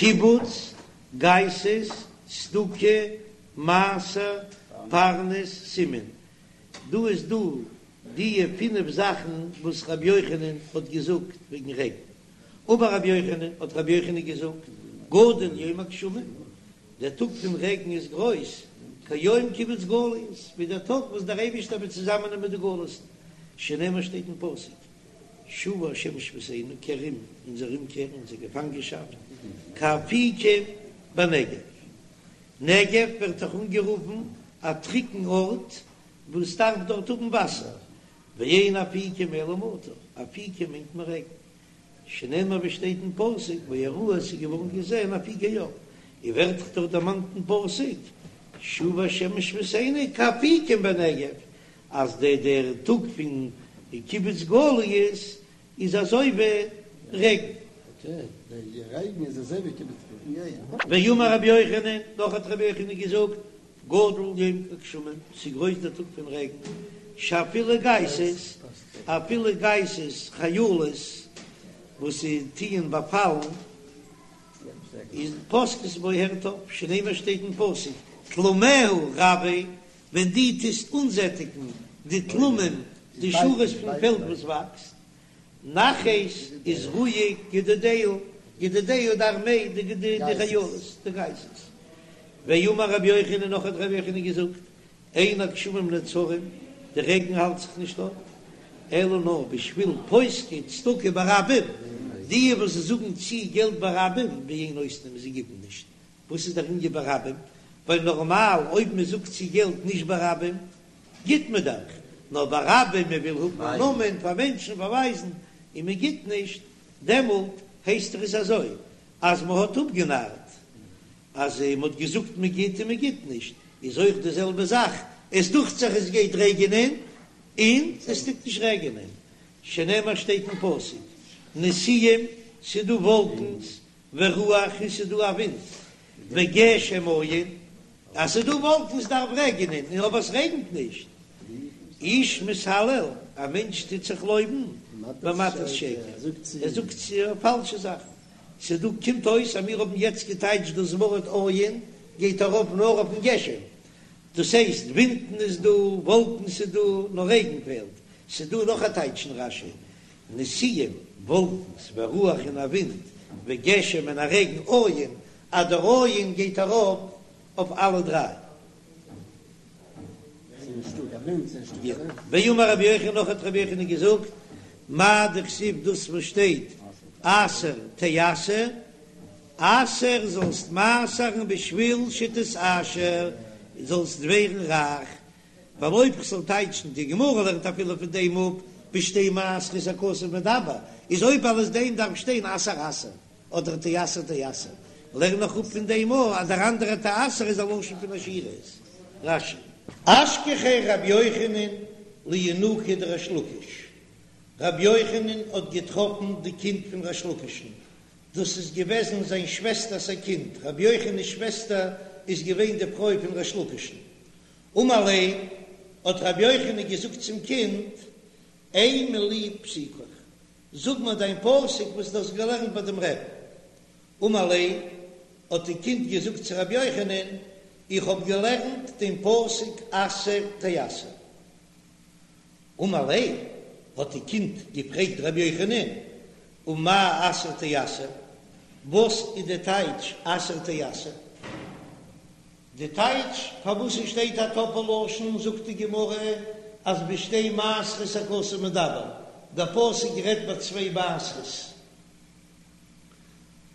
קיבוץ, גייסות, צדקה, מעשר, פרנס, סימן. דא איז דא דיע פינף זאכן וואס רבי יוחנן האט געזאגט וועגן רעגן. אמר רבי יוחנן, האט רבי יוחנן געזאגט, גדול יום הגשמים, דער טאג פון רעגן איז גרויס, כיום קיבוץ גליות, ווי דער טאג וואס דער אייבישטער וועט צוזאמענעמען די גלות'ן, שנאמר שטייט אין פסוק, שובה השם שביתנו, קער אום אונזער אומקער, אונזער געפאנגענשאפט, כאפיקים בנגב. נגב ווערט דאך אנגערופן א טרוקן ארט וואס דארף דארט האבן וואסער, ואין אפיקים אלא מטר, אפיקים מיינט מען רעגן, שנאמר ווי שטייט אין פסוק ויראו עס איז געווארן געזען אפיקי אור, און ווערט דאך דארט דערמאנט אין פסוק שובה השם שביתנו כאפיקים בנגב, אז דער דער טאג פון קיבוץ גליות איז אזוי ווי רעגן. ואמר רבי יוחנן, נאך האט רבי יוחנן געזאגט, גדול יום הגשמים, ס'איז גרויס דער טאג פון רעגן, שאפילו גייסות, אפילו גייסות חיילות וואס טוען באפאלן, איז פוסקות בו הערט אויף, שנאמר שטייט אין פסוק, תלמיה רבה, ווען דו טוסט אנזעטיגן די תלמים, די שורות פון פעלד וואס וואקסט, נחת איז רואיג גדודיה, גדודיה די ארמעי, די חיילות, די גייסות. ואמר רבי יוחנן, נאך האט רבי יוחנן געזאגט, אין הגשמים נעצרים, די רעגן האלט זיך נישט אפ, אלא נאר בשביל פוסקי צדקה ברבים, די וואס זאגן צו געלט ברבים, ואין נותנים, זיי גיבן נישט, וואס איז דער ענין ברבים? ווייל נארמאל אויב מען זאגט צו געלט נישט ברבים גיט מען דאך, נאר ברבים מען וויל האבן א נאמען פאר מענטשן באווייזן און מען גיט נישט, דעמאלט הייסט עס אזוי אז מען האט אפגענארט, אז מען האט געזאגט מען גיט און מען גיט נישט, איז אויך די זעלבע זאך, עס דוכט זיך עס גייט רעגענען און עס טוט נישט רעגענען, שנאמר שטייט אין פסוק נשיאים ס'דא וואלקנס ורוח און ס'איז דא א ווינט, וגשם אין, אז ס'איז דא וואלקנס דארף רעגענען, און אויב עס רעגנט נישט, איש מתהלל, א מענטש טוט זיך לויבן, במתת שקר, ער זאגט צו פאלשע זאכן, ס'איז דא, קומט אויס אז מיר האבן יעצט געטייטשט דאס ווארט אין גייט ארויף נאר אויפן גשם, דאס הייסט ווינטן איז דא, וואלקנס איז דא, נאר רעגן פעלט, ס'איז דא נאך א טייטש אין רש"י, נשיאים, וואלקנס, ורוח און א ווינט, וגשם און א רעגן, אין, אז דער אין גייט ארויף אויף אלע דריי. ואמר רבי יוחנן נאך האט רבי יוחנן געזאגט, מאי דכתיב דאס וואס שטייט עשר תעשר, עשר זאלסט מעשר'ן בשביל שתתעשר, זאלסט ווערן רייך, ווייל אויב כ'זאל טייטשן די גמרא לערנט אפילו פון דעם אפ בשתי מעשרות הכתוב מדבר, איז אויב אלס דעם דארף שטיין עשר עשר אדער תעשר תעשר, לערן איך אפ פון דעם אויך אז דער אנדערע תעשר איז א לשון פון עשירות. רש"י. אשכחיה רבי יוחנן לינוקא דריש לקיש, רבי יוחנן האט געטראפן די קינד פון ריש לקיש'ן, דאס איז געוועזן זיין שוועסטער'ס א קינד, רבי יוחנן'ס שוועסטער איז געווען די פרוי פון ריש לקיש'ן, אמר ליה, האט רבי יוחנן געזאגט צום קינד, אימא לי פסוקך, זאג מיר דיין פסוק וואס דו האסט געלערנט ביי דעם רעבן. אמר ליה, האט די קינד געזאגט צו רבי יוחנן, איך האב געלערנט דעם פסוק עשר תעשר. אמר ליה, האט די קינד געפרעגט רבי יוחנן, ומאי עשר תעשר, וואס איז די טייטש עשר תעשר? די טייטש פארוואס עס שטייט א טאפל לשון זאגט די גמרא אז בשתי מעשרות הכתוב מדבר, דער פסוק רעדט ביי צוויי מעשרות,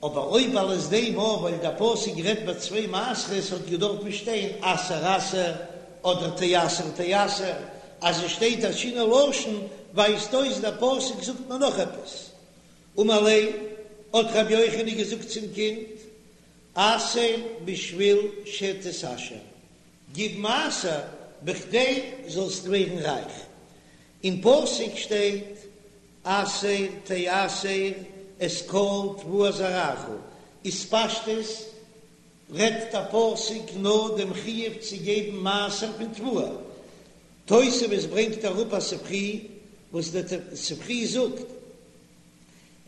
אבער אויב אלס דעם אויב ווייל דער פסוק רעדט ביי צוויי מעשרות האט געדארפט שטיין עשר עשר אדער תעשר תעשר, אז עס שטייט א שינוי לשון ווייזט אויס דער פסוק זאגט מיר נאך עפעס. אמר ליה, האט רבי יוחנן געזאגט צום קינד, עשר בשביל שתתעשר, גיב מעשר בכדי זאלסט ווערן רייך. אין פסוק שטייט עשר תעשר את כל תבואת זרעך, איז פשטות רעדט דער פסוק נאר דעם חיוב צו געבן מעשר פון תבואה. תוספות ברענגט אראפ א ספרי וואס דער ספרי זאגט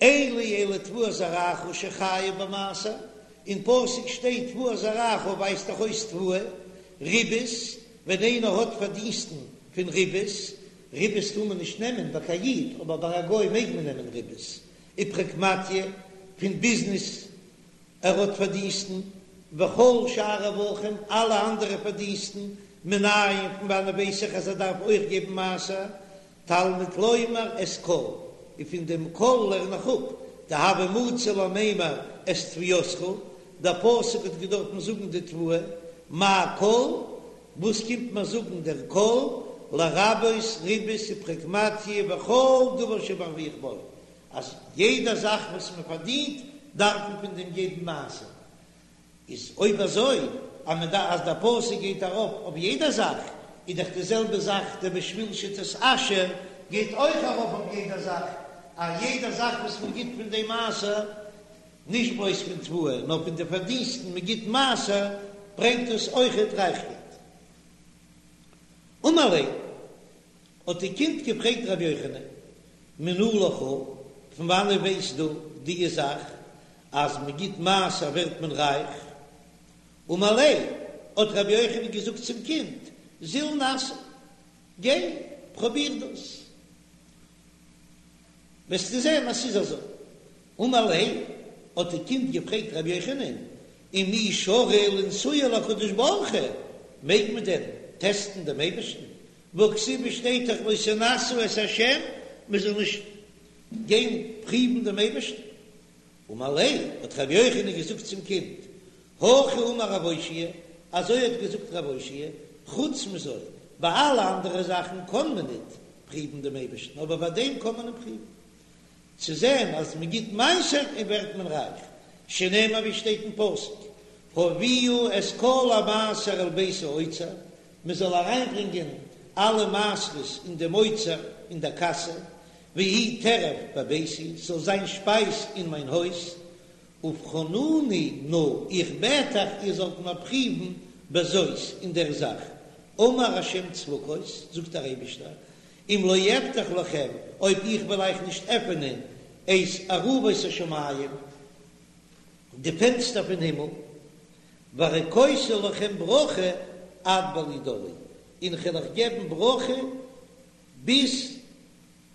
אין לי אלא תבואת זרעך שחייב במעשר. אין פסוק שטייט תבואת זרעך ווייזט דאך אויס תבואה, ריבית, ווען איינער האט פארדינסטן פון ריבית, ריבית טאר מען נישט נעמען ביי קיין איד, אבער ביי א גוי מעג מען נעמען ריבית, ופרקמטיא, פון ביזנעס ער האט פארדינסטן, וכל שאר רווחים, אלע אנדערע פארדינסטן, מנין פון וואנען ווייס איך אז ער דארף אויך געבן מעשר, תלמוד לומר את כל, און פון דעם כל לערן איך אפ, דהוה מצי למימר את תבואתך, דער פסוק האט געדארפן זאגן די תבואה, מאי כל, וואס קומט מיר זאגן דער כל, לרבות ריבית ופרקמטיא וכל דבר שמרוויח בו, אז יעדע זאך וואס מען פארדינט דארף מען פון דעם געבן מעשר, איז אויב אזוי אז מען דארף אז דער פסוק גייט ארויף אויף יעדע זאך, איז דאך די זעלבע זאך דער בשביל שתתעשר גייט אויך ארויף אויף יעדע זאך, אז יעדע זאך וואס מען גיט פון דעם מעשר, נישט בלויז פון תבואה נאר פון די פארדינסטן מען גיט מעשר, ברענגט דאס אויכעט רייכקייט. אמר ליה. האט די קינד געפרעגט רבי יוחנן, מנא לך, פון וואנען ווייסט דו דיע זאך אז מען גיט מעשר ווערט מען רייך? אמר ליה, האט רבי יוחנן געזאגט צום קינד, זיל נסי, גיי פרוביר דאס, וועסטו זען אז ס'איז אזוי. אמר ליה, האט די קינד געפרעגט רבי יוחנן, ומי שרי לנסויי לקדוש ברוך הוא, מעג מען דען טעסטן דעם אייבערשטן? והכתיב שטייט דאך לא תנסו את ה', מען זאל נישט גיין פריוון דעם אייבערשטן. אמר ליה, האט רבי יוחנן געזאגט צום קינד, הכי אמר רב אושעיא, אזוי האט געזאגט רב אושעיא, חוץ מזו, ביי אלע אנדערע זאכן קען מען ניט פריוון דעם אייבערשטן, אבער ביי דעם קען מען אים פריוון, צו זען אז מען גיט מעשר און ווערט מען רייך, שנאמר ווי שטייט אין פסוק, הביאו את כל המעשר אל בית האוצר, מען זאל אריינברענגען אלע מעשרות אין דעם אוצר אין דער קאסע, ויהי טרף בביתי, ס'זאל זיין שפייז אין מיין הויז, ובחנוני נא, איך בעט אייך איר זאלט מיר פריוון בזאת, אין דער זאך, אמר השם צבקות, זאגט דער אייבישטער, אם לא אפתח לכם, אויב איך וועל אייך נישט עפענען את ארובות השמים, די פענסטער פון הימל, והריקותי לכם ברכה עד בלי די, און כ'וועל אייך געבן ברכה ביז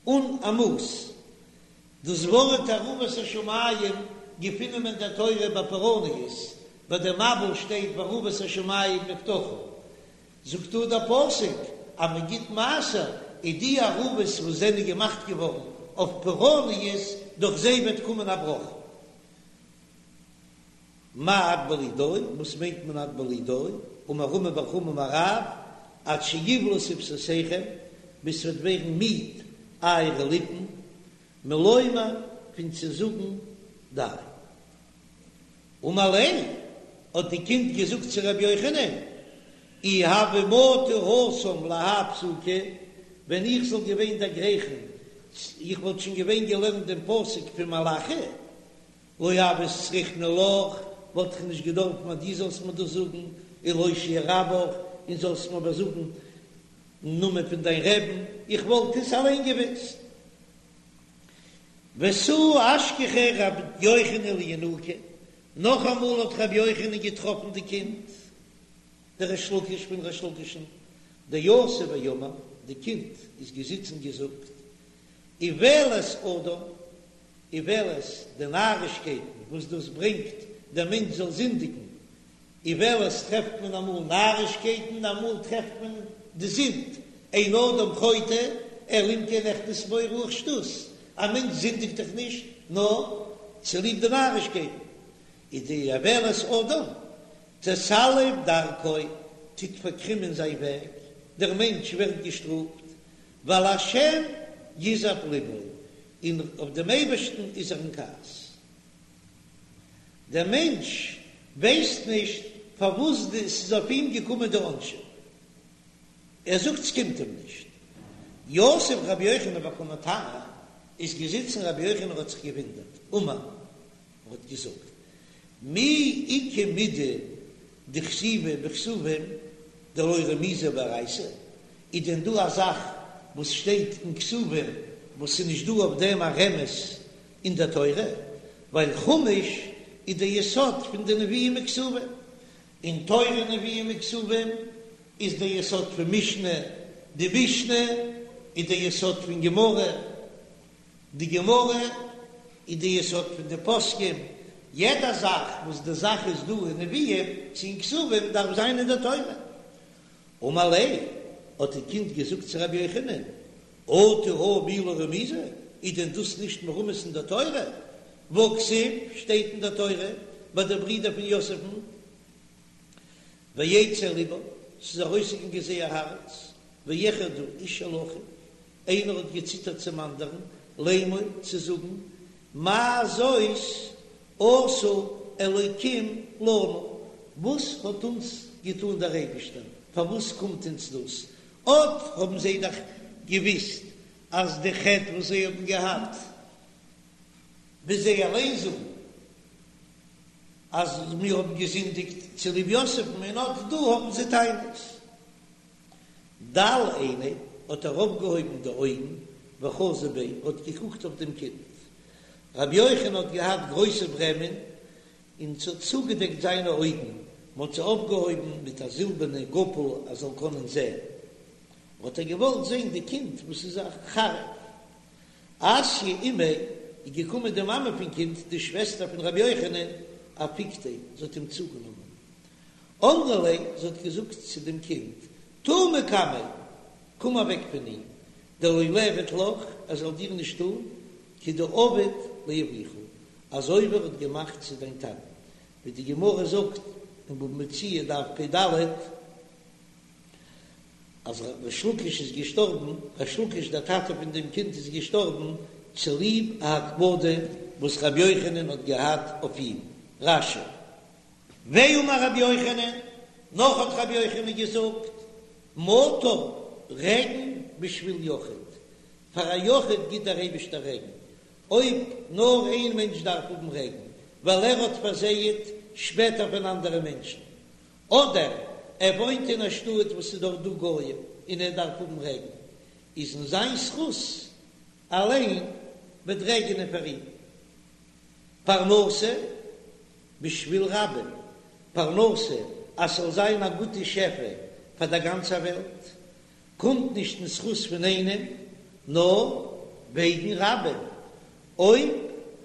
אן א מאס. דאס ווארט ארובות השמים געפינען מיר אין דער תורה ביי פורעניות, ביי דער מבול שטייט וארובות השמים נפתחו, זאגט דא דער פסוק אז מען גיט מעשר, איז די ארובות וואס זענען געמאכט געווארן אויף פורעניות, דורך זיי וועט קומען א ברכה. מאי עד בלי די, וואס מיינט מען עד בלי די? אמר רמי בר חמא אמר רב, עד שיבלו שפתותיכם, ביז ס'וועט ווערן מיד אייערע ליפן, מלומר, פון צו זאגן די. אמר ליה, האט די קינד געזאגט צו רבי יוחנן, אי הוה מטי התם להאי פסוקא, ווען איך זאל געווען דערגרייכן, איך וואלט שוין געווען געלערנט דעם פסוק פון מלאכי, לא הוית צריכנא לך, וואלט איך נישט געדארפן אז דו זאלסט מיר דאס זאגן, ולהושיע רבך, און זאלסט מיר איבערזאגן נאמען פון דיין רעבן, איך וואלט עס אליין געוואוסט. ותו אשכחיה רבי יוחנן לינוקא, נאכאמאל האט רבי יוחנן געטראפן די קינד, דריש לקיש פון ריש לקיש'ן, דיתיב ואמר, די קינד איז געזיצן געזאגט, איוולת אדם, איוולת, די נארישקייטן וואס דאס ברענגט דער מענטש זאל זינדיגן, איוולת טרעפט מען אמאל נארישקייטן, אמאל טרעפט מען די זינד, אין אדם חוטא אלא אם כן נכנס בו רוח שטות, א מענטש זינדיגט דאך נישט נאר צוליב די נארישקייטן, איז די איוולת אדם תסלף דרכו, טוט פארקרימען זיין וועג, דער מענטש ווערט געשטראפט, ועל השם יזעף לבו, און אויף דעם אייבערשטן איז ער אין כעס. דער מענטש ווייסט נישט פארוואס ס'איז אויף אים געקומען די עונשים, ער זאגט ס'קומט אים נישט. יתיב רבי יוחנן וקא מתמה, איז געזיצן רבי יוחנן האט זיך געוואונדערט, אמר, ער האט געזאגט, מי איכא מידי דכתיבא בכתובים דלא רמיזא באורייתא, איז דען דא א זאך וואס שטייט אין כתובים וואס איז נישט דא אויף דעם א רמז אין דער תורה? ווייל חומש. איז דער יסוד פון די נביאים וכתובים, און תורה נביאים וכתובים איז דער יסוד פון משנה, די משנה איז דער יסוד פון גמרא, די גמרא איז די יסוד פון די פוסקים, יעדע זאך וואס די זאך איז דא אין נביאים צו אין כתובים דארף זיין אין די תורה. אמר ליה, האט די קינד געזאגט צו רבי יוחנן, אטו הא מי לא רמיזא, איז דען דאס נישט מרומז אין די תורה? והכתיב, שטייט אין די תורה ביי די ברידער פון יוסף'ן, ויצא לבם, ס'איז ארויסגעגאנגען זייער הארץ, ויחרדו איש אל אחיו, איינער האט געציטערט צום אנדערן, לאמור, צו זאגן, מה זאת עשה אלוקים לנו, וואס האט אונז געטאן דער אייבישטער, פארוואס קומט אונז דאס? אט האבן זיי דאך געוויסט אז די חטא וואס זיי האבן געהאט, ווי זיי אליין זאגן, אז מיר האבן געזינדיגט צוליב יוסף'ן, און אט דא האבן זיי טענות. דל עיניה, האט ער אויפגעהויבן די אויגן, וחזא ביה, האט געקוקט אויף דעם קינד. רבי יוחנן האט געהאט גרויסע ברעמען, און ס'האט צוגעדעקט זיינע אויגן, מ'האט זיי אויפגעהויבן מיט א זילבערנע גאפל ער זאל קענען זען. האט ער געוואלט זען די קינד וואס איז א חריף. אתיא אימיה, איז געקומען די מאמע פון קינד, די שוועסטער פון רבי יוחנן, אפיקתיה, זי האט אים צוגענומען. אמרה ליה, זי האט געזאגט צו דעם קינד, תא מקמיה, קום אוועק פון אים, דלא ליעביד לך, ער זאל דיר נישט טאן, כדעבד לאבוך, אזוי ווי ער האט געמאכט צו דיין טאטן, ווי די גמרא זאגט אין בבא מציעא דף פ"ד, אז ריש לקיש איז געשטארבן, ריש לקיש דער טאטע פון דעם קינד איז געשטארבן צוליב א הקפדה וואס רבי יוחנן האט געהאט אויף אים. רש"י. ואמר רבי יוחנן, נאך האט רבי יוחנן געזאגט, מטר, רעגן בשביל יחיד, פאר א יחיד גיט דער אייבישטער רעגן, אויב נאר איין מענטש דארף האבן רעגן, ווייל ער האט פארזייעט שפעטער פון אנדערע מענטשן, אדער ער וואוינט אין א שטאט וואס איז דארט דא גוים און ער דארף האבן רעגן, איז אין זיין זכות אליין וועט רעגענען פאר אים. פרנסה בשביל רבים, פרנסה אז ס'זאל זיין א גוטע שפע פאר דער גאנצער וועלט, קומט נישט אין זכות פון איינעם, נאר וועגן רבים, אויב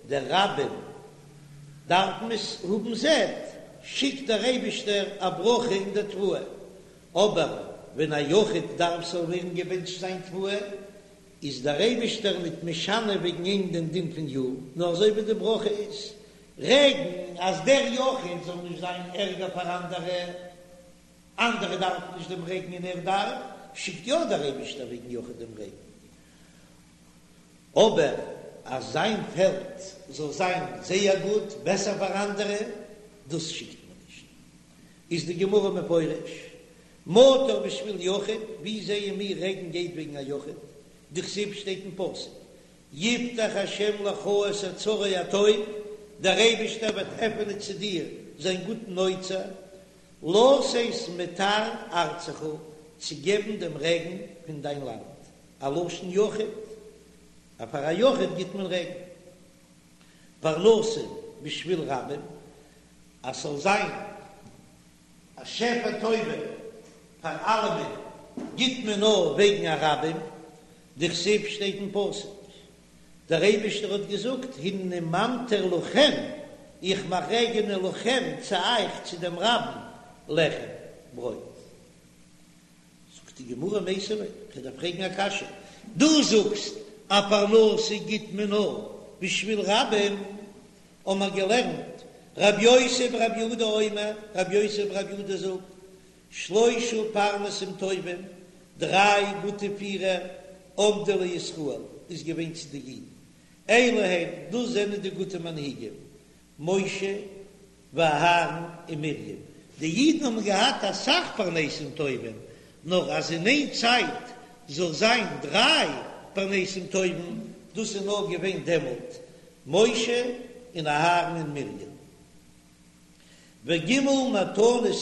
דער רבים דארפן עס האבן זעט, שיקט דער אייבישטער א ברכה אין דער תבואה, אבער ווען א יחיד דארף ס'זאל ווערן געבענטשט זיין תבואה, איז דער אייבישטער ניט משנה וועגן אים דעם דין פון יאר, נאר אזוי ווי די ברכה איז רעגן, אז דער יחיד זאל נישט זיין ערגער פאר אנדערע, אנדערע דארפן נישט דעם רעגן און ער דארף, שיקט יא דער אייבישטער וועגן יחיד דעם רעגן, אבער אז זיין פעלד זאל זיין זייער גוט, בעסער פאר אנדערע, דאס שיקט מען נישט. איז די גמרא מפרש, מטר בשביל יחיד, ווי זעען מיר רעגן גייט וועגן א יחיד? דכתיב שטייט אין פסוק, יפתח השם לך את אוצרו הטוב, דער אייבישטער וועט עפענען צו דיר זיין גוטן אוצר, לתת מטר ארצך, צו געבן דעם רעגן פון דיין לאנד, א לשון יחיד, אז פאר א יחיד גיט מען רעגן. פרנסה בשביל רבים, אז ס'זאל זיין א שפע טובה פאר אלעמען, גיט מען נאר וועגן א רבים, דכתיב שטייט אין פסוק, דער אייבישטער האט געזאגט, הנני ממטיר לכם, איך מאך רעגענען לכם, צו אייך, צו דעם רבים, לחם, ברויט. זאגט די גמרא מיתיבי, כ'דארף פרעגן א קשיא, דו זאגסט אז פרנסה גיט מען נאר בשביל רבים, האבן מיר געלערנט רב יוסי ברב יהודה אומר, רב יוסי ברב יהודה זאגט, שלושה פרנסים טובים, דריי גוטע פירער, עמדו לישראל, איז געווען צו די אידן, אלו הן, דאס זענען די גוטע מנהיגים, משה ואהרן און מרים, די אידן האבן געהאט אסאך פרנסים טובים, נאר אז אין איין צייט זאל זיין דריי פרנסים טובים, דאס איז נאר געווען דעמאלט, משה און אהרן און מרים. וג' מתנות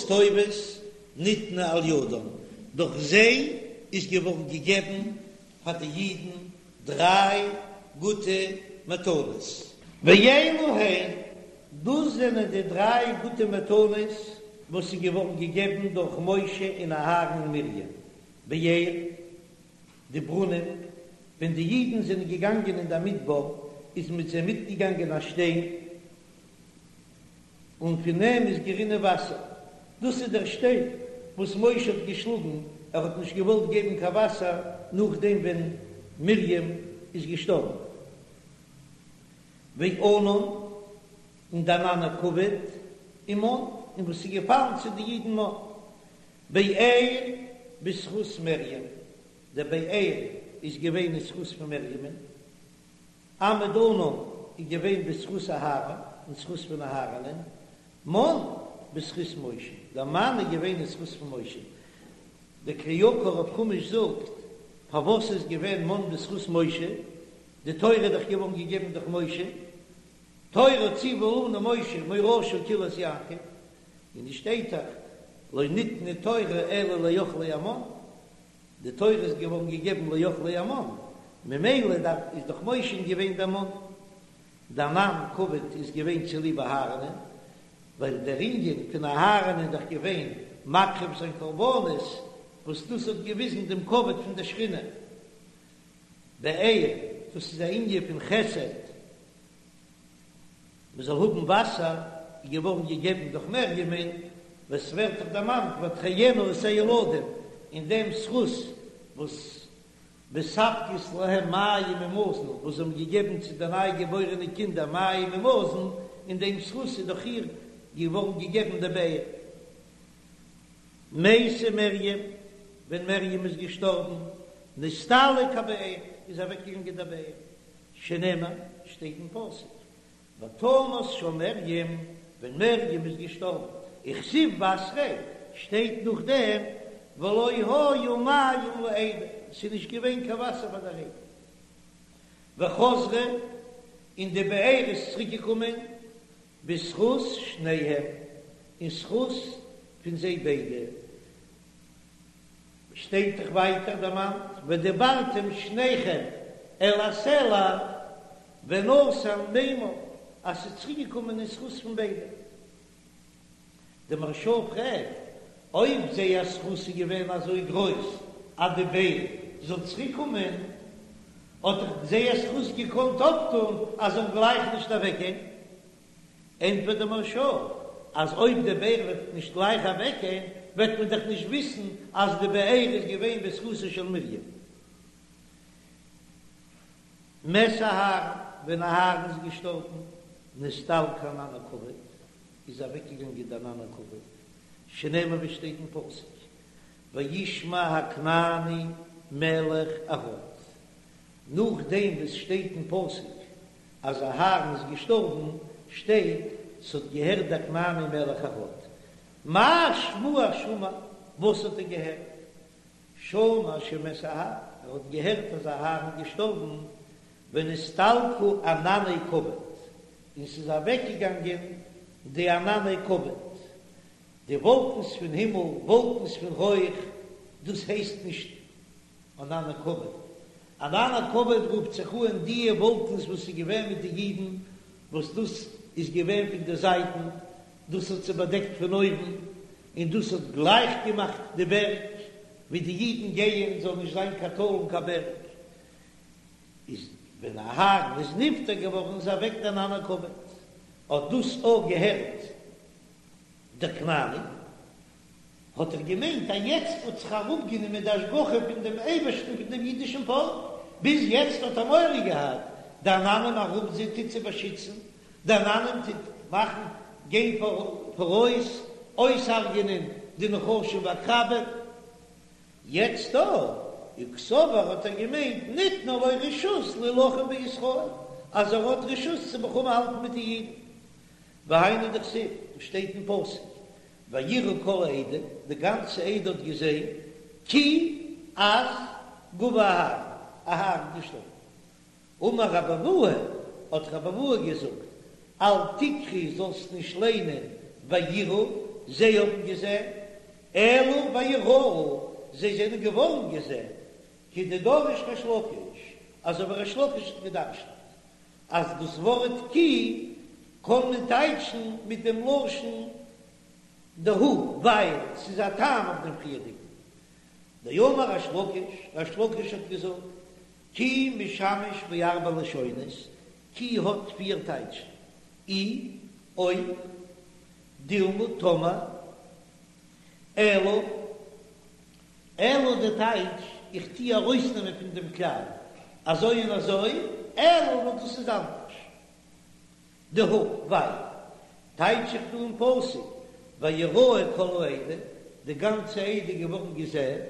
טובות ניתנו על ידם, דורך זיי איז געווארן געגעבן פאר די אידן דריי גוטע מתנות. ואלו הן. דאס זענען די דריי גוטע מתנות וואס איז געווארן געגעבן דורך משה און אהרן און מרים, באר, די ברונעם, ווען די אידן זענען געגאנגען אין דער מדבר איז מיט זיי מיטגעגאנגען א שטיין, און פון אים איז גערינען וואסער, דאס איז דער שטיין וואס משה האט געשלאגן, ער האט נישט געוואלט געבן קיין וואסער נאכדעם ווען מרים איז געשטארבן. וענן, און די ענני כבוד, ומן, און וואס איז געפאלן צו די אידן מן. באר בזכות מרים, דער באר איז געווען אין זכות פון מרימ'ן. עמוד ענן איז געווען בזכות אהרן, אין זכות פון אהרנ'ען. מן בזכות משה, דער מן איז געווען אין זכות פון משה. דער כלי יקר אויף חומש זאגט, פארוואס איז געווען מן בזכות משה? די תורה איז דאך געווארן געגעבן דורך משה, תורה ציוה לנו משה מורשה קהלת יעקב, און עס שטייט דאך לא ניתנה תורה אלא לאוכלי המן, די תורה איז געווארן געגעבן לאוכלי המן, ממילא דארף איז דאך משה געווען דער מן, די ענן כבוד איז געווען צוליב אהרנ'ען, ווייל דער ענין פון אהרן איז דאך געווען מקריב זיין קרבנות, וואס דאס האט געוויזן דעם כבוד פון דער שכינה. באר, דאס איז א ענין פון חסד, מען זאל האבן וואסער, איז געווארן געגעבן דורך מרימ'ן, וואס ווערט דאך דערמאנט ותחיין את הילדים, אין דעם זכות וואס מספקות להם מים ומזון, וואס זיי האבן געגעבן צו די ניי געבוירענע קינדער מים ומזון, אין דעם זכות איז דורך איר געווארן געגעבן די באר. מתה מרים, ווען מרים איז געשטארבן, נסתלק הבאר, איז אוועקגעגאנגען דער באר, שנאמר, שטייט אין פסוק, ותמת שם מרים, ווען מרים איז געשטארבן, וכתיב בתריה, שטייט נאכדעם, ולא היו מים לעדה, ס'איז נישט געווען קיין וואסער פאר דער עדה. וחזרה, און די באר איז צוריקגעקומען, בזכות שניהם, אין זכות פון זיי ביידע, שטייט דאך ווייטער דערמאנט, ודברתם שניכם אל הסלע ונתן מימיו, אז ס'איז צוריק געקומען אין זכות פון ביידע. די מהרש"א פרעגט, אויב זייער זכות איז געווען אזוי גרויס אז די באר זאל צוריק קומען, האט דאך זייער זכות געקאנט אויפטון אז זאל גלייך נישט אוועקגיין. ענטפערט דער מהרש"א אז אויב די באר וועט נישט גלייך אוועקגיין וועט מען דאך נישט וויסן אז די באר איז געווען בזכותה של מרים. מת אהרן, ווען אהרן איז געשטארבן, נסתלק ענן הכבוד, איז אוועקגעגאנגען די ענן הכבוד, שנאמר ווי שטייט אין פסוק, וישמע הכנעני מלך ערד, נאכדעם וואס שטייט אין פסוק אז אהרן איז געשטארבן, שטייט ס'האט געהערט דער כנעני מלך ערד. מה שמועה שמע, וואס האט ער געהערט? שמע שמת אהרן, ער האט געהערט אז אהרן איז געשטארבן, ונסתלקו ענני כבוד, און ס'איז אוועקגעגאנגען די ענני כבוד, די וואלקנס פון הימל, וואלקנס פון רויך, דאס הייסט נישט ענני כבוד. ענני כבוד רופט זיך אן דיע וואלקנס וואס איז געווען מיט די אידן, וואס דאס איז געווען פון די זייטן, דאס האט זיי באדעקט פון אויבן, און דאס האט גלייך געמאכט די בערג ווי די אידן גייען, זאל נישט זיין קיין טאל און קיין בערג. איז ווען אהרן איז נפטר געווארן איז אוועק די ענני כבוד, האט דאס אויך געהערט דער כנעני, האט ער געמיינט אז יעצט האט זיך אראפגענומען די השגחה פון דעם אייבערשטן פון דעם אידישן פאלק, ביז יעצט האט ער מורא געהאט, די עננים ארום זיי טוט צו באשיצן, די עננים טוט מאכן גיין פאראויס, אויסהרג'ענען די נחשים ועקרבים, יעצט דא, וקסבר האט ער געמיינט ניתנה לו רשות להילחם בישראל, אז ער האט רשות צו מלחמה האלטן מיט די אידן, והיינו דכתיב, וואס שטייט אין פסוק, ויראו כל העדה, די גאנצע עדה האט געזען, כי אז גוע אהרן, אהרן איז געשטארבן. אמר רבי אבהו, האט רבי אבהו געזאגט, אל תקרי זאלסט נישט ליינען ויראו, זיי האבן געזען, אלא ויראו, זיי זענען געווארן געזען, כדדריש ריש לקיש, אזוי ווי ריש לקיש האט געדרשנט, אז דאס ווארט כי. קען מען טייטשן מיט דעם לשון דהא, ווייל ס'איז א טעם אויף דעם פריערדיגן. דאמר ריש לקיש, ריש לקיש האט געזאגט, כי משמש בארבע לשונות, כי האט פיר טייטשן, אי, אויב, דילמא, טאמער, אלא, אלא די טייטש, איך טוה ארויסנעמען פון דעם כלל, אזוי און אזוי, אלא נאר דאס איז אנדערש. דהא, ווייל, טייטש איך דא אין פסוק, ויראו כל העדה, די גאנצע עדה איז געווארן געזען,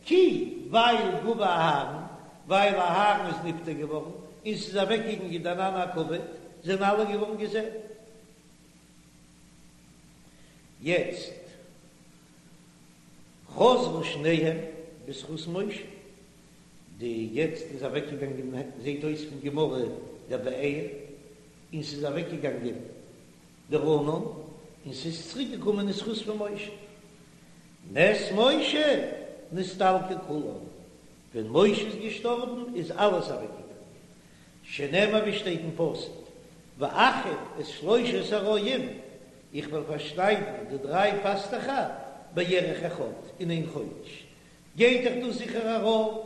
כי, ווייל גוע אהרן, ווייל אהרן איז נפטר געווארן, און ס'איז אוועקגעגאנגען די ענני הכבוד, זענען אלע געווארן געזען. יעצט חזרו שניהם בזכות משה, די יעצט איז אוועקגעגאנגען זעהט אויס פון גמרא דער באר, און ס'איז אוועקגעגאנגען דער ענן, און ס'איז צוריק געקומען אין זכות פון משה. מת משה נסתלקו כולם, ווען משה איז געשטארבן איז אלעס אוועקגעגאנגען, שנאמר ווי שטייט אין פסוק, ואכחד את שלושת הרועים, איך וועל פארשניידן די דריי פאסטעכער בירח אחד, אין איין חודש. גייט דאך דאס זיכער ארויף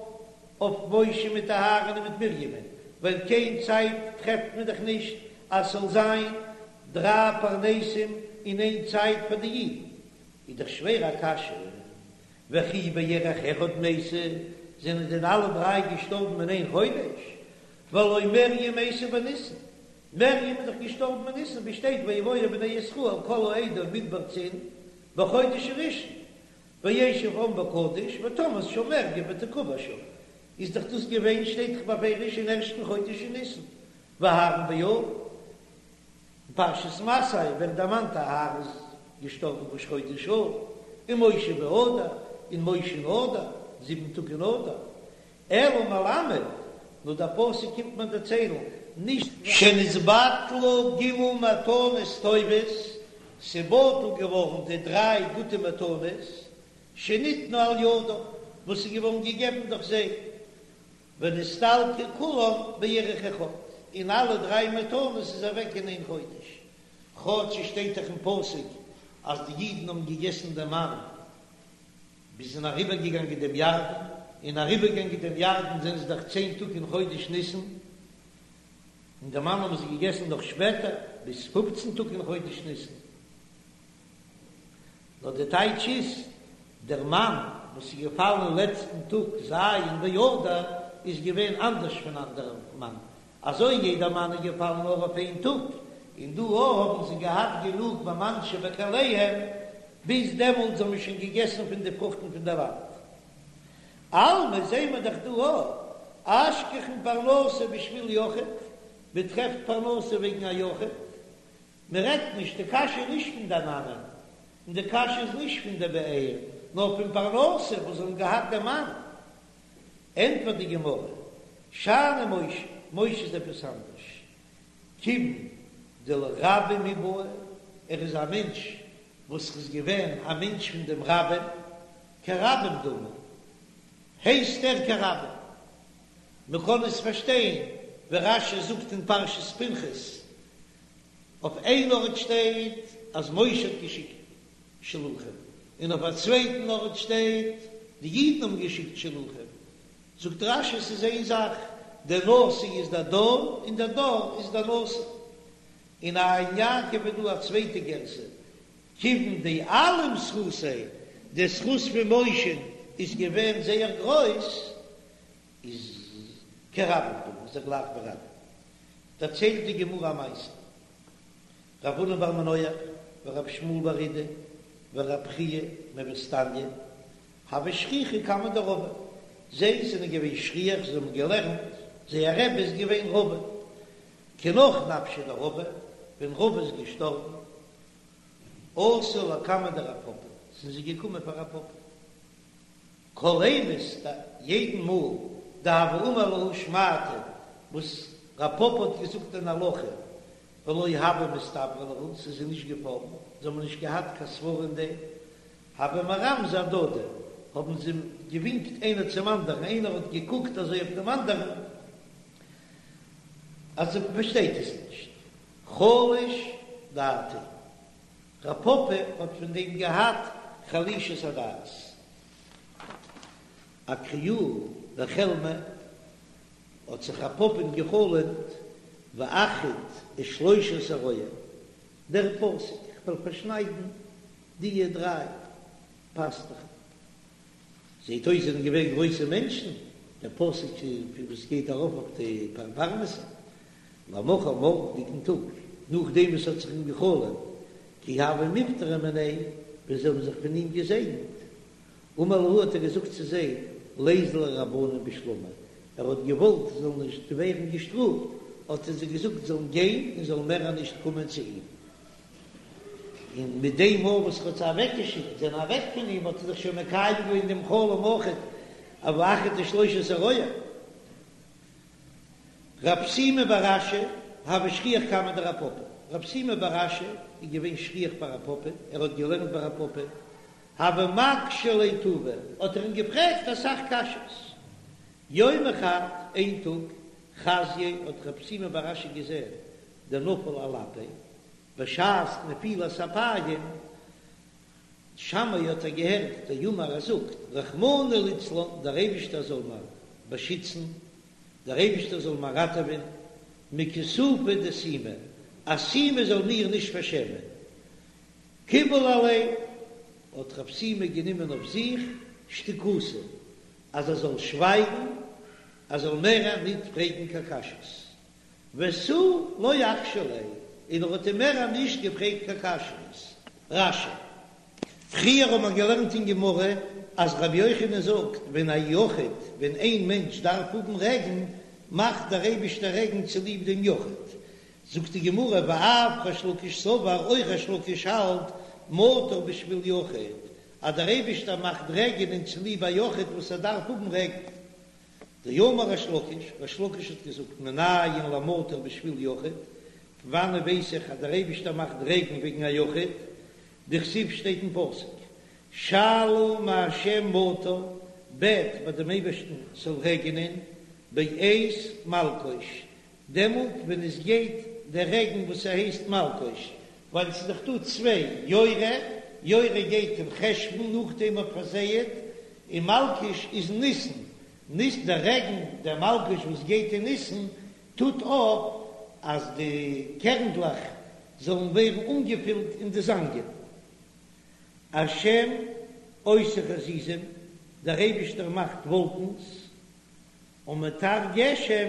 אויף משה מיט אהרן און מיט מרימ'ן, ווייל קיין צייט טרעפט מען דאך נישט אז ס'זאל זיין דריי פרנסים אין איין צייט פאר די אידן. איז דאך שווער א קשיא, וכי בירח אחד מתו, זענען דען אלע דריי געשטארבן אין איין חודש? והלא מרים מתה בניסן, מרים איז דאך געשטארבן אין ניסן, ווי שטייט ויבואו בני ישראל כל העדה מדבר צין בחודש הראשון, וישב העם בקדש ותמת שם מרים ותקבר שם, איז דאך דאס געווען שטייט דאך בפירוש אין ערשטן חודש אין ניסן, ואהרן באב. אין פרשת מסעי ווערט דערמאנט אהרן איז געשטארבן ראש חודש אב, און משה באדר, און משה אין אדר, זיבן טאג אין אדר. אלא מלמד, נאר דער פסוק קומט מיר דערציילן, נישט. שנתבטלו ג' מתנות טובות, ס'בטל געווארן די דריי גוטע מתנות, שניתנו על ידם, וואס איז געווארן געגעבן דורך זיי, ונסתלקו כולם בירח אחד, און אלע דריי מתנות איז אוועק אין איין חודש, כאטש עס שטייט דאך אין פסוק אז די אידן האבן געגעסן דעם מן ביז זיי זענען אריבער געגאנגען דעם ירדן, און אריבער געגאנגען דעם ירדן זענען זיי דאך צען טאג אין חודש ניסן, און דעם מן האבן זיי געגעסן נאך שפעטער ביז פופצן טאג אין חודש ניסן. נאר די טייטש איז, דער מן וואס איז געפאלן אין לעצטן טאג ז' באדר איז געווען אנדערש פון אנדערע מן, אזוי יעדער מן איז געפאלן נאר אויף איין טאג, און דא האבן זיי געהאט גענוג במן שבכליהם, ביז דעמאלטס האבן מיר שוין געגעסן פון די פרוכטן פון דער לאנד. אלמא זעהן מיר דאך דא אויך, אשכחן פרנסה בשביל יחיד, מען טרעפט פרנסה וועגן א יחיד, מען רעדט נישט, די קשיא איז נישט פון די עננים, און די קשיא איז נישט פון די באר, נאר פון פרנסה וואס זיי האבן געהאט די מן. ענטפערט די גמרא, שאני משה, משה איז עפעס אנדערש, כיוון דלרבים הוא בעי, ער איז א מענטש וואס איז געווען א מענטש פון דעם רבים, כרבים דמי, הייסט ער כרבים. מען קען עס פארשטיין ווי רש"י זאגט אין פרשת פנחס, אויף איין ארט שטייט אז משה האט געשיקט שלוחים, און אויף א צווייטן ארט שטייט די אידן האבן געשיקט שלוחים, זאגט רש"י ס'איז איין זאך, דער נשיא איז דער דור און דער דור איז דער נשיא. אין עין יעקב איז דא א צווייטע גירסא, כיוון דאלים זכותיה, די זכות פון משה איז געווען זייער גרויס, איז כרבים דמי, איז ער גלייך ווי רבים. דערציילט די גמרא א מעשה, רב הונא בר מנוח ורב שמואל בר אידי ורב חייא מווסתניא הוו שכיחי קמיה דרבא, זיי זענען געווען שכיח, זיי האבן געלערנט, זייער רבי איז געווען רבא, כי נח נפשיה דרבא, ווען רבא איז געשטארבן, אתו לקמיה דרב פפא, זענען זיי געקומען פאר רב פפא. כל אימת יעדן מאל דהוה אמר להו שמעתא וואס רב פפא האט געזאגט אן הלכה ולא הוה מסתברא להו ס'איז זיי נישט געפאלן זיי האבן נישט געהאט קיין סברה אין דעם הוו מרמזי אהדדי האבן זיי געווינקט איינער צום אנדערן איינער האט געקוקט אזוי אויף דעם אנדערן אז ער פארשטייט עס נישט חלש. דעתיה, רב פפא האט פון דעם געהאט חלישות הדעת. אקריוה בחלמיה האט זיך רב פפא'ן גע'חלומ'ט ואכחית את שלושת הרועים, דער פסוק איך וועל פארשניידן דיע דריי פאסטוכן. זעהט אויס זענען געווען גרויסע מענטשן, דער פסוק וואס גייט ארויף אויף די פרנסה, למחר מארגנדיגן טאג, נאכדעם וואס האט זיך אים גע'חלומ'ט, כי הוו מיפטרי מיניה, ווען זיי האבן זיך פון אים געזעגנט, אמר להו האט ער געזאגט צו זיי, ליזלו רבנן בשלמא, ער האט געוואלט זיי זאלן נישט ווערן געשטראפט, האט ער זיי געזאגט זאלן גיין און זאלן מער נישט קומען צו אים. און מיט דעם מאל וואס ער האט זיי אוועקגעשיקט, זענען אוועק פון אים, האט ער זיך שוין מקיים געווען דעם חלום אויכעט, ואכחית את שלושת הרועים. רב שימי בר אשי הוה שכיח קמיה דרב פפא, רב שימי בר אשי איז געווען שכיח ביי רב פפא, ער האט געלערנט ביי רב פפא, הוה מקשי ליה טובא, האט ער אים געפרעגט אסאך קשיות. יומא חד, איין טאג, חזייה האט רב שימי בר אשי געזען דנפל על אפיה, בשעת נפילת אפיים, שמעיה האט ער געהערט דאמר ער זאגט, רחמנא ליצלן, דער אייבישטער זאל מיר באשיצן, דער אייבישטער זאל מיר ראטעווען, מכיסופא דסומא, אז סומא זאל מיר נישט פארשעמען. קיבל עליה, האט רב שימי גענומען אויף זיך שתיקותא, אז ער זאל שווייגן, ער זאל מער ניט פרעגן קיין קשיות. ותו לא אקשי ליה, און ער האט אים מער נישט געפרעגט קיין קשיות. רש"י. פריער האט מען געלערנט אין גמרא אז רבי יוחנן זאגט ווען א יחיד, ווען איין מענטש דארף האבן רעגן, מאכט דער אייבישטער רעגן צוליב דעם יחיד. זאגט די גמרא ואף ריש לקיש סבר, אויך ריש לקיש האלט מטר בשביל יחיד, אז דער אייבישטער מאכט רעגענען צוליב א יחיד וואס ער דארף האבן רעגן. דאמר ריש לקיש, ריש לקיש האט געזאגט מנין למטר בשביל יחיד, פון וואנען ווייס איך אז דער אייבישטער מאכט רעגן וועגן א יחיד, דכתיב שטייט אין פסוק שאלו מה' מטר, בעט ביי דעם אייבערשטן ס'זאל רעגענען, בעת מלקוש, דעמאלט ווען עס גייט דער רעגן וואס ס'הייסט מלקוש, ווייל ס'איז דאך דא צוויי, יורה, יורה גייט אין חשוון נאכדעם מ'האט פארזייעט, און מלקוש איז אין ניסן, ניס דער רעגן דער מלקוש וואס גייט אין ניסן טוט אויף אז די קערנדלעך זאלן ווערן אנגעפילט אין די זאנגען. השם עושה חזיזים, דער אייבישטער מאכט וואלקנס, ומטר גשם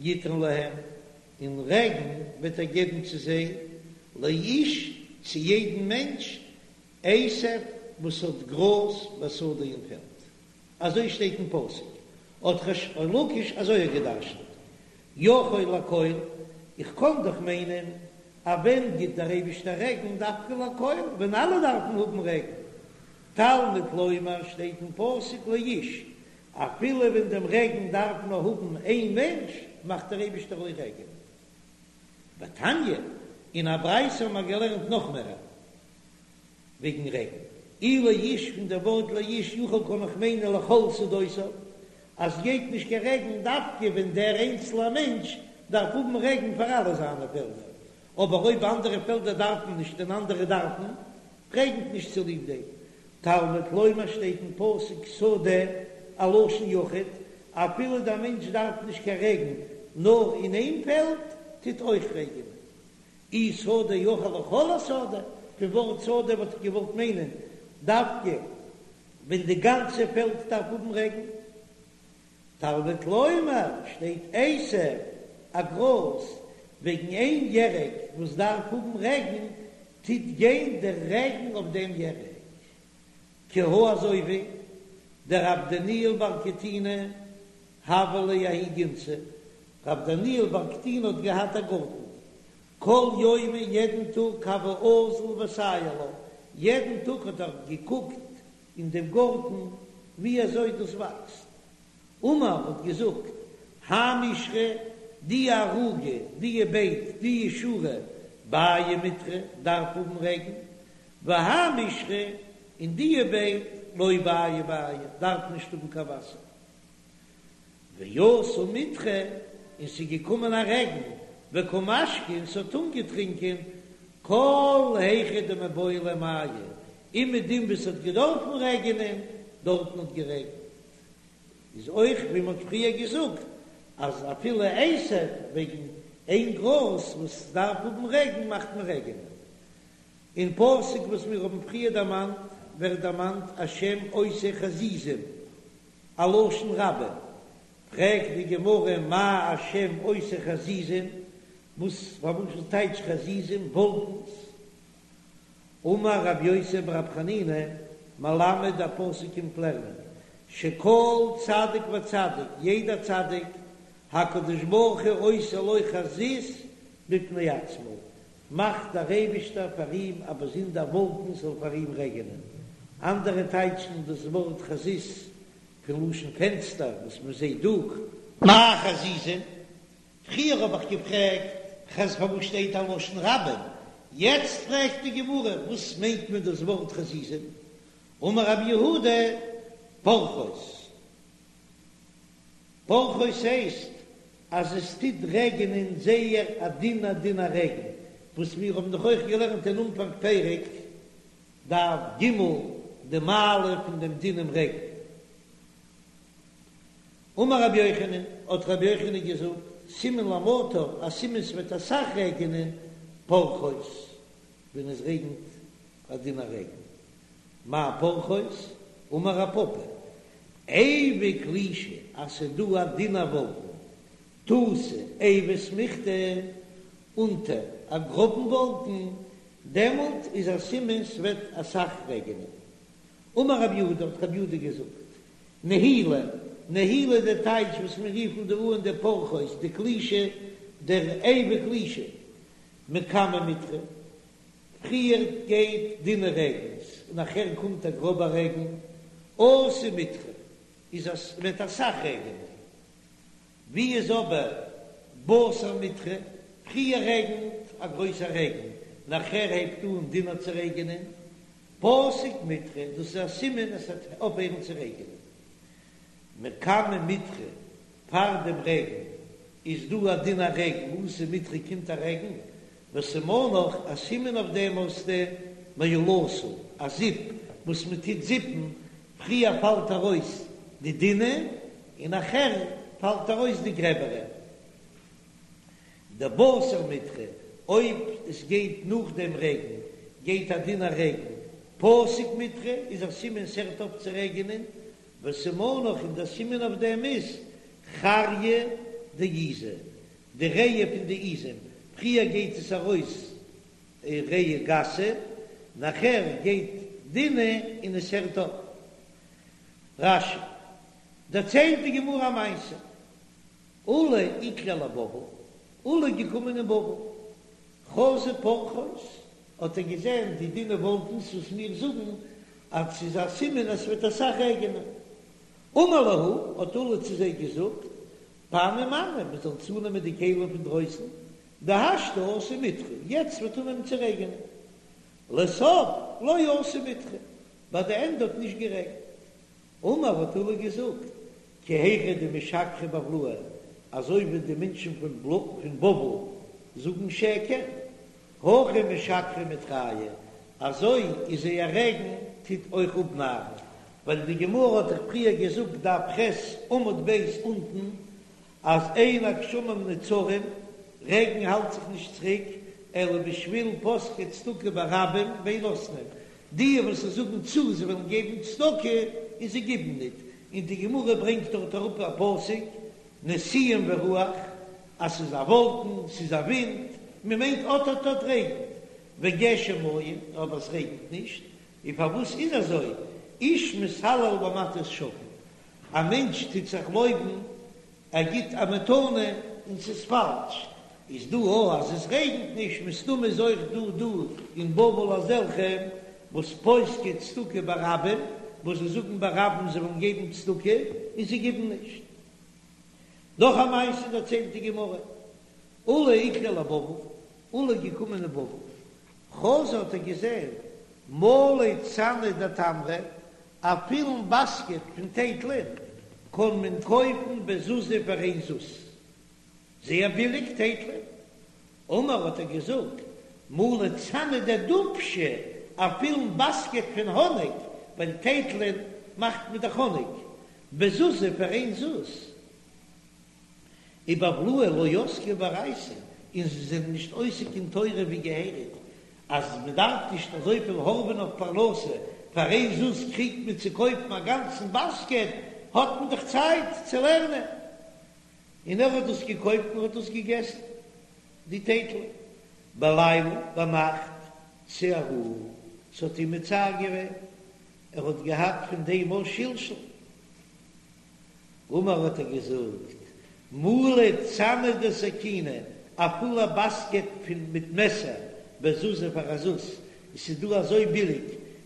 יתן להם, און רעגן וועט ער געבן צו זיי, לאיש, צו יעדן מענטש, עשב וואס האט גראז בשדה אין פעלד. אזוי שטייט אין פסוק, האט ריש לקיש אזוי געדרשנט, יכול לכל, איך קען דאך מיינען אז ווען גיט דער אייבישטער רעגן דווקא לכל, ווען אלע דארפן האבן רעגן, תלמוד לומר שטייט אין פסוק לאיש, אפילו ווען דעם רעגן דארף נאר האבן איין מענטש, מאכט דער אייבישטער אויך רעגענען. ותניא, אין א ברייתא האבן מיר געלערנט נאך מער וועגן רעגן. אי לאיש פון דער ווארט לאיש יכול קען איך מיינען לכל שדותיו, אז ס'גייט נישט קיין רעגן דווקא ווען דער איינצלער מענטש דארף האבן רעגן פאר אלע זיינע פעלדער, אבער אויב אנדערע פעלדער דארפן נישט און אנדערע דארפן, רעגנט נישט צוליב דעם. תלמוד לומר שטייט אין פסוק שדה א לשון יחיד, אפילו דער מענטש דארף נישט קיין רעגן נאר אין איין פעלד טוט אויך רעגענען. אי שדה יכול לכל השדה, פון ווארט שדה וואלט איך געוואלט מיינען דווקא ווען די גאנצע פעלד דארף האבן רעגן. תלמוד לומר שטייט עשב א גראז וועגן איין ירק וואס דארף האבן רעגן טוט גיין דער רעגן אויף דעם ירק כי הא אזוי ווי דרב דניאל בר קטינא הוה ליה ההיא גינתא, רב דניאל בר קטינא האט געהאט א גארטן כל יומא יעדן טאג הוה אזיל וסייר לה, יעדן טאג האט ער געקוקט אין דעם גארטן ווי אזוי דאס וואקסט. אמר האט געזאגט, האי מישרא, די ערוגה, די בייט, די שורה, בעי מיטרא, דארף האבן רעגן, והאי מישרא, און די בייט, לא בעי בעיא, דארף נישט האבן קיין וואסער. ואתא מיטרא, און ס'איז געקומען א רעגן, וקא משקי, און ס'האט אנגעטרינקען. כל היכא דמיבעי ליה מיא, אומעדום וואו ס'האט געדארפן רעגענען, דארטן האט גערעגנט. איז אויך ווי מ'האט פריער געזאגט אז אפילו עשב וועגן איין גראז וואס דארף האבן רעגן מאכט מען רעגענען. אין פסוק וואס מיר האבן פריער דערמאנט ווערט דערמאנט השם עושה חזיזים, א לשון רבים, פרעגט די גמרא מאי השם עושה חזיזים, וואס פארוואס טייטש חזיזים וואלקנס? אמר רב יוסי ברב חנינא, מלמד דער פסוק קומט לערנען, שכל צדיק וצדיק, יעדער צדיק, הקדוש ברוך הוא עושה לו חזית בפני עצמו, מאכט דער אייבישטער פאר אים א באזונדער וואלקן ס'זאל פאר אים רעגענען. אנדערע טייטשן דאס ווארט חזית פון לשון פענסטער וואס מען זעט דורך. מאי חזיזים? פריער האב איך געפרעגט חז פארוואס שטייט א לשון רבים, יעצט פרעגט די גמרא וואס מיינט מען דאס ווארט חזיזים? אמר רב יהודה פורחות. פורחות הייסט אז עס טוט רעגענען זייער א דינע דינע רעגן, וואס מיר האבן דאך אויך געלערנט אין אנפאנג פרק דף ג די מעלה פון דעם דינעם רעגן. אמר רבי יוחנן, האט רבי יוחנן געזאגט, סימן למטר, א סימן ס'וועט אסאך רעגענען, פורחות, ווען עס רעגנט א דינע רעגן. מאי פורחות? אמר רב פפא, עיבא קלישא, אז ס'איז דא א דינע וואלקן, תותי עיבא סמיכתא, אונטער א גראבן וואלקן, דעמאלט איז א סימן ס'וועט אסאך רעגענען. אמר רב יהודה, האט רב יהודה געזאגט, נהילא, נהילא די טייטש וואס מיר רופן דא אן די פורחות, די קלישא, דער עיבא קלישא, מקמי מיטרא, פריער גייט דינע רעגנס און נאכער קומט א גראבע רעגן, אתי מיטרא, איז אז ס'וועט אסאך רעגענען. ווי איז אבער בתר מיטרא, פריער רעגנט א גרויסע רעגן, נאכער הייבט אן דינער צו רעגענען, פסיק מיטרא, דאס איז א סימן עס וועט אויפהערן צו רעגענען. מקמי מיטרא, פאר דעם רעגן איז דא א דינע רעגן, אתי מיטרא קומט א רעגן, וסימנך, א סימן אויף דעם האסטו מהלתא, א זיפ וואס מען טוט זיפן, פריער פאלט ארויס די דינע און נאכער פאלט ארויס די גרעבערע. דבתר מיטרא, אויב עס גייט נאך דעם רעגן, גייט א דינע רעגן, פסיק מיטרא איז א סימן ס'הערט אויף צו רעגענען, וסימנך און דער סימן אויף דעם איז חריא דעיזא, די ריאה פון די עיזים, פריער גייט עס ארויס ריאה גסה, נאכער גייט דינע און עס הערט אויף. רש"י דערציילט די גמרא א מעשה, עולא איקלע לבבל, עולא איז געקומען אין בבל, חזה פורחות, האט ער געזען די דינע וואלקנס וואס מיר זאגן אז ס'איז א סימן אז ס'וועט אסאך רעגענען. אמר להו, האט עולא צו זיי געזאגט, פנו מאני, מען זאל צונעמען די כלים פון דרויסן, דהשתא אתי מיטרא, יעצט וועט אנהייבן צו רעגענען. לסוף לא אתי מיטרא, ביי די ענדע האט נישט גערעגנט. אמר האט עולא געזאגט, כי היכי דמשקרי בבלאי, אזוי ווי די מענטשן פון בבל זאגן שקר, הכי משקרי מיטרייהו, אזוי איז זייער רעגן טוט אויך אפנארן, ווייל די גמרא האט דאך פריער געזאגט דף ח' עמוד ב' אונטן אז אין הגשמים נעצרים, רעגן האלט זיך נישט צוריק, אלא בשביל פוסקי צדקה ברבים ואין נותנין, די וואס זאגן צו זיי וועלן געבן צדקה און זיי גיבן ניט, און די גמרא ברענגט דארט אראפ א פסוק, נשיאים ורוח, אז ס'איז א וואלקן, ס'איז א ווינט, מען מיינט אט אט אט רעגנט, וגשם אין, אבער עס רעגנט נישט, און פארוואס איז אזוי, איש מתהלל במתת שקר, א מענטש טוט זיך לויבן ער גיט א מתנה און ס'איז פאלש, איז דא או אז עס רעגנט נישט, מסתמא איז אויך דא דא אין בבל אזעלכע וואס פוסקי צדקה ברבים, וואס זיי זאגן ברבים זיי וועלן געבן צדקה און זיי גיבן נישט. נאך א מעשה דערציילט די גמרא, עולא איקלע לבבל, עולא איז געקומען אין בבל, חזא האט ער געזען מלא צנא דתמרי, א פילן באסקעט פון טייטלען קען מען קויפן בזוזא פאר איין זוז, זייער ביליג טייטלען. אמר האט ער געזאגט, מלא צנא דדובשא, א פולן באסקעט פון האניג, ווייל טייטלען מאכט מען דאך האניג, בזוזא פאר איין זוז. ובבלאי לא עסקי באורייתא, און זיי זענען נישט עוסק אין תורה ווי געהעריג, אז מען דארף נישט אזויפיל הארעווען אויף פרנסה, פאר איין זוז קריגט מען צו קויפן א גאנצן באסקעט, האט מען דאך צייט צו לערנען. און ער האט דאס געקויפט און האט דאס געגעסן, די טייטלען, בליליא ביינאכט צערוהו, ס'האט אים מצער געווען, ער האט געהאט פון דעם אויך שלשול. אמר האט ער געזאגט, מלא צנא דסכינא, א פולע באסקעט פון מיט מעסער, בזוזא פאר א זוז, עס איז דא אזוי ביליג,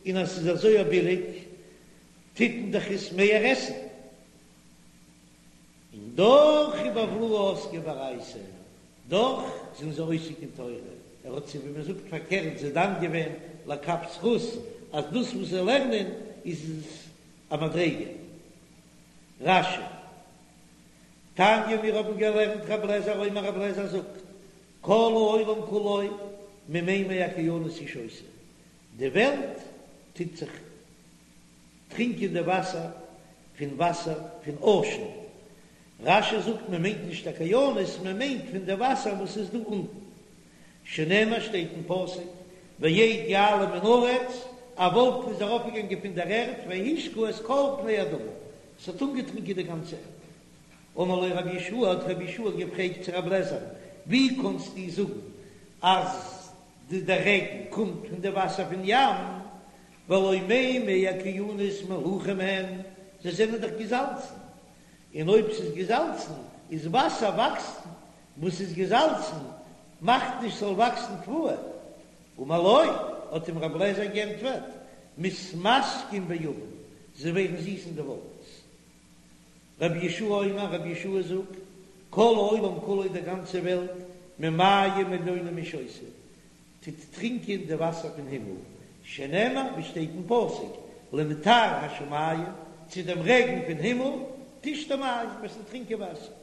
און אז ס'איז אזוי ביליג, טוט מען דאך עס מער עסן. און דאך ובבלאי עסקי באורייתא, דאך זענען זיי עוסק אין תורה, ער האט זיי ווי מען זאגט פארקערט זיי דן געווען לכף זכות, אז דאס וואס זיי לערנען איז א מדריגה. רש"י. תניא מיר האבן געלערנט רב לעזער אומר רב לעזער זאגט כל העולם כולו ממימי אוקיינוס הוא שותה, די וועלט טוט זיך טרינקען די וואסער פון וואסער פון אושען, רש"י זאגט מען מיינט נישט אוקיינוס מען מיינט פון די וואסער וואס איז דא אונטן, שנאמר שטייט אין פסוק ואד יעלה מן הארץ, א וואלקן איז ארויפגעגאנגען פון דער ערד והשקה את כל פני האדמה, עס האט אנגעטרינקען די גאנצע ערד. אמר לו רבי יהושע, האט רבי יהושע געפרעגט צו רבי אליעזר, ווי קאנסטו זאגן אז די דער רעגן קומט פון די וואסער פון ים, והלא מימי אוקיינוס מלוחים הם, זיי זענען דאך געזאלצן, און אויב ס'איז געזאלצן איז וואסער וואקסט וואס איז געזאלצן מאכט נישט ס'זאל וואקסן תבואה. אמר לו, האט אים רבי אליעזר גענטפערט, מתמתקין בעבים, זיי ווערן זיס אין די וואלקנס. רבי יהושע אומר, רבי יהושע זאגט, כל העולם כולו די גאנצע וועלט, ממים עליונים הוא שותה, טוט טרינקען די וואסער פון הימל, שנאמר ווי שטייט אין פסוק, למטר השמים, צו דעם רעגן פון הימל, תשתה מים, וועסטו טרינקען וואסער.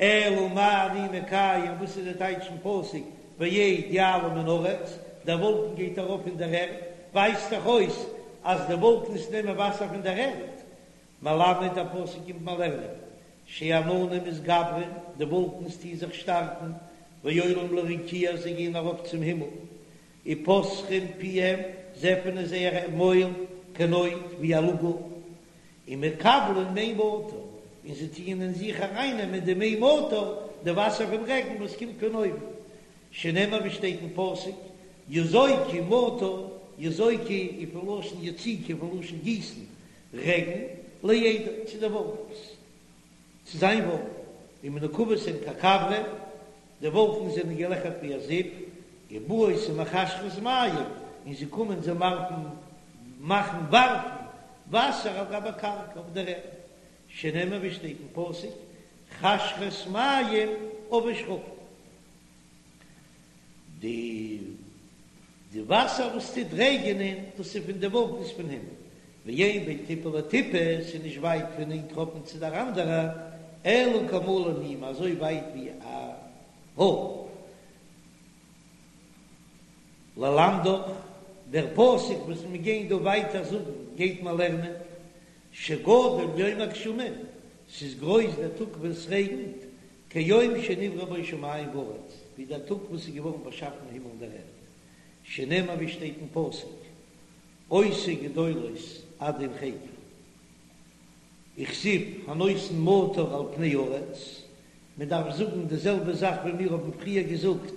אלא מה אני מקיים, וואס איז די טייטש פון פסוק ואד יעלה מן הארץ, דער וואלקן גייט ארויף פון דער ערד, ווייזט דאך אויס אז די וואלקנס נעמען וואסער פון דער ערד, מלמד דער פסוק קומט מיר לערנען, שעננים מתגברים, די וואלקנס טוהן זיך שטארקן, ועולים לרקיע, זיי גייען ארויף צום הימל, ופותחים פיהם, זיי עפענען זייער מויל, כנוד, ווי א לאגל, ומקבלין מי מטר, און זיי טוען אין זיך ארייננעמען די מי מטר, די וואסער פון רעגן וואס קומט פון אויבן, שנאמר ווי שטייט אין פסוק, יזוקו מטר, יזוקו איז פון לשון יציקה, פון לשון גיסן, רעגן, לאדו, צו די וואלקנס, צו זיין וואלקן, ומנוקבות הן ככברה, די וואלקנס זענען געלעכערט ווי א זיפ, ובאות ומחשרות מים, און זיי קומען זיי ווארפן, מאכן ווארפן, וואסער על גבי קרקע אויף דער ערד, שנאמר ווי שטייט אין פסוק, חשרת מים עבה שחקים. די די וואסער וואס טוט רעגענען, דאס איז פון די וואלקנס פון הימל, ואין בין טיפה לטיפה, ס'איז נישט ווייט פון איין טראפן צו דער אנדערע, אלא כמלא נימא, אזוי ווייט ווי א האר. ללמדך, דער פסוק וואס מיר גייען דא ווייטער זאגן, גייט מען לערנען, שגדול יום הגשמים, ס'איז גרויס דער טאג ווען ס'רעגנט, כיום שנבראו בו שמים וארץ, ווי דער טאג וואס איז געווארן באשאפן הימל און דער ערד, שנאמר ווי שטייט אין פסוק, עושה גדולות עד אין חקר, וכתיב הנותן מטר על פני הארץ, מען דארף זאגן די זעלבע זאך ווי מיר האבן פריער געזאגט,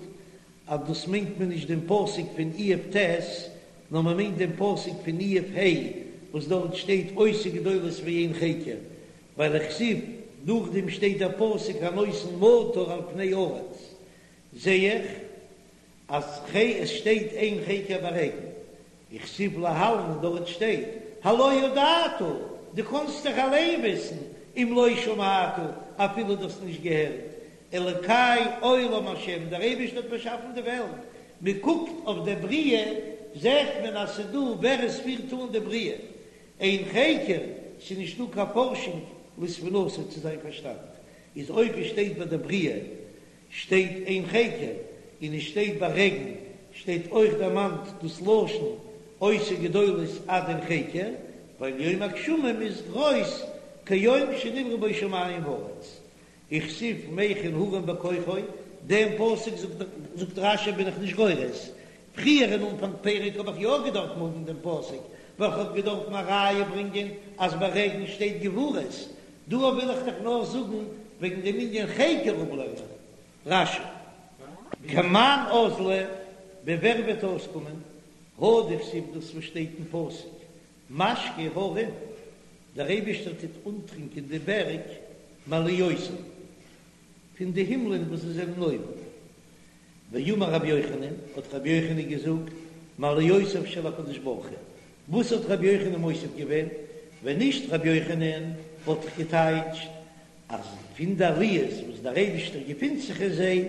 אז דאס מיינט מען נישט דעם פסוק פון איוב ט', נאר מען מיינט דעם פסוק פון איוב ה', וואס דארט שטייט עושה גדולות ואין חקר, ווייל וכתיב, נאכדעם שטייט דער פסוק הנותן מטר על פני הארץ, זע איך אז ח עס שטייט אין חקר ביי רעגן, וכתיב להלן און דארט שטייט הלא ידעת, דו קאנסט דאך אליין וויסן, אם לא שמעת, אפילו דו האסט נישט געהערט, אלוקי עולם השם, דער אייבערשטער האט באשאפן די וועלט, מען קוקט אויף דער בריאה זעט מען אז ס'איז דא ווער עס פירט אן די בריאה, אין חקר, ס'איז נישטא קיין פארשונג לתבונתו צו זיין פארשטאנד, איז אויב עס שטייט ביי די בריאה שטייט אין חקר, און עס שטייט ביי רעגן. שטייט אויך דערמאנט דאס לשון עושה גדולות עד אין חקר, ווייל יום הגשמים איז גרויס כיום שנבראו בו שמים וארץ. וכתיב מכין הרים בכוחו, דעם פסוק זאגט רש"י בין איך נישט גורס, פריער אין אנפאנג פרק האב איך יא געדארפט האבן דעם פסוק, ווייל כ'האב געדארפט א ראיה ברענגען אז ביי רעגן שטייט גבורות, דא וויל איך דאך נאר זאגן וועגן דעם ענין חקר אפלערנען רש"י. כמאן אזלא, ווי ווער וועט אויסקומען, הא דכתיב דאס וואס שטייט אין פסוק, משקה הרים, דער אייבישטער טוט אנטרינקען די בערג מעליותיו, פון די הימלען וואס זיי זענען אויבן. ואמר רבי יוחנן, האט רבי יוחנן געזאגט, מעליותיו של הקדוש ברוך הוא. וואס האט רבי יוחנן מוסיף געווען? ווען נישט רבי יוחנן וואלט איך געטייטשט אז פון די עליות וואס דער אייבישטער געפינט זיך אין זיי,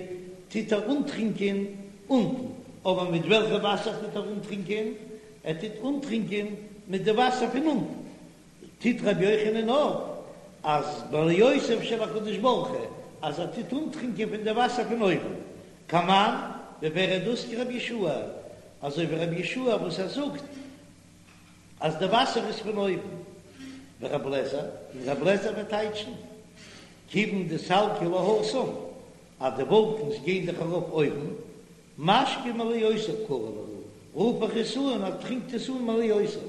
טוט ער אנטרינקען אונטן. אבער מיט וועלכע וואסער טוט ער אנטרינקען? ער טוט אנטרינקען מיט די וואסער פון אונטן. טוט רבי יוחנן אויף אז מעליותיו של הקדוש ברוך הוא אז ער טוט אנטרינקען פון די וואסער פון אויבן, כמאן ווי ווער איז דאס כרבי יהושע, אזוי ווי רבי יהושע וואס ער זאגט אז די וואסער איז פון אויבן, ורבי אליעזר, און רבי אליעזר וועט טייטשן כיוון דסלקי להתם אז די וואלקנס גייען דאך ארויף אויבן, משקה מעליותיו קרי להו, רוף איך עס אן אז טרינקט עס אן מעליותיו,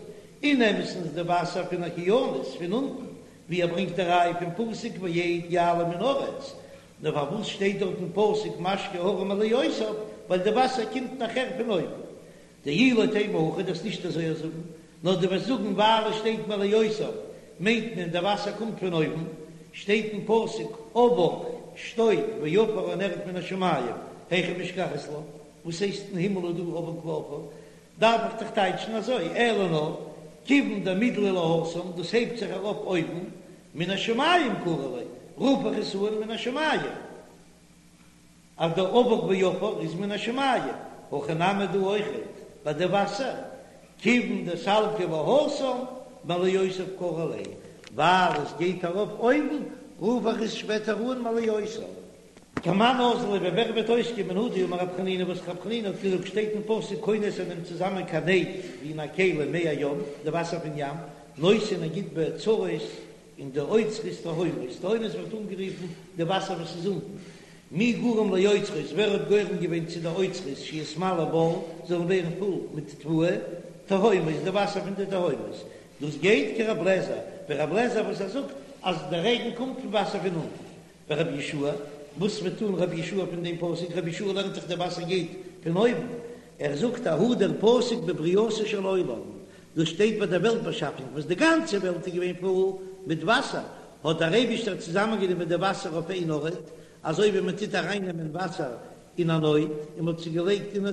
אין אמת'ן איז די וואסער פון אוקיינוס פון אונטן, ווי ער ברענגט די ראיה פון פסוק ואד יעלה מן הארץ, נאר פארוואס שטייט דארט אין פסוק משקה הרים מעליותיו, ווייל די וואסער קומט נאכער פון אויבן. דאי לא תימא הכי דו'סט נישט אזוי זאגן, נאר דו וועסט זאגן ווייל עס שטייט מעליותיו מיינט מען די וואסער קומט פון אויבן, שטייט אין פסוק אבק שטויב ועפר און ערד מן השמים היכא משכחת לה, וואס הייסט אין הימל איז דא אבק ועפר? דארף איך דאך טייטשן אזוי, אלא נאר כיוון דמידלי להתם דאס הייבט זיך ארויף אויבן, מן השמים קרי ליה, רוף איך עס אן מן השמים. אז דער אבק ועפר איז מן השמים, הכא נמי דא אויכעט ביי די וואסער, כיוון דסלקי להתם מעליותיו קרי ליה, ווייל עס גייט ארויף אויבן, רוף איך עס שפעטער אן מעליותיו. כמאן אזלא ווי ווער וועט אויסקומען הא דאמר רב חנינא וואס רב חנינא האט געזאגט שטייט אין פסוק כונס ער נעמט צוזאמען כנד ווי אין א כלי מי הים די וואסער פון ים נותן ער גיט באוצרות אין די אוצרות תהומות, תהומות ווערט אנגערופן די וואסער וואס איז אונטן, מי גרם לאוצרות, ווער האט גורם געווען צו די אוצרות שיתמלאו בר, זאלן ווערן פול מיט תבואה, תהומות, די וואסער פון די תהומות, דאס גייט כרב לעזער, ווי רב לעזער וואס ער זאגט אז די רעגן קומט פון וואסער פון אונטן, ורבי יהושע, וואס וועט טון רבי יהושע פון דעם פסוק, רבי יהושע לערנט דאך די וואסער גייט פון אויבן, ער זאגט ההוא דער פסוק בבריאתו של עולם, דאס שטייט ביי דער וועלט באשאפונג וואס די גאנצע וועלט איז געווען פול מיט וואסער, האט דער אייבישטער צוזאמענגענומען די וואסער אויף איין ארט, אזוי ווי מען טוט ארייננעמען וואסער אין א נוד און מען האט עס געלייגט אין א.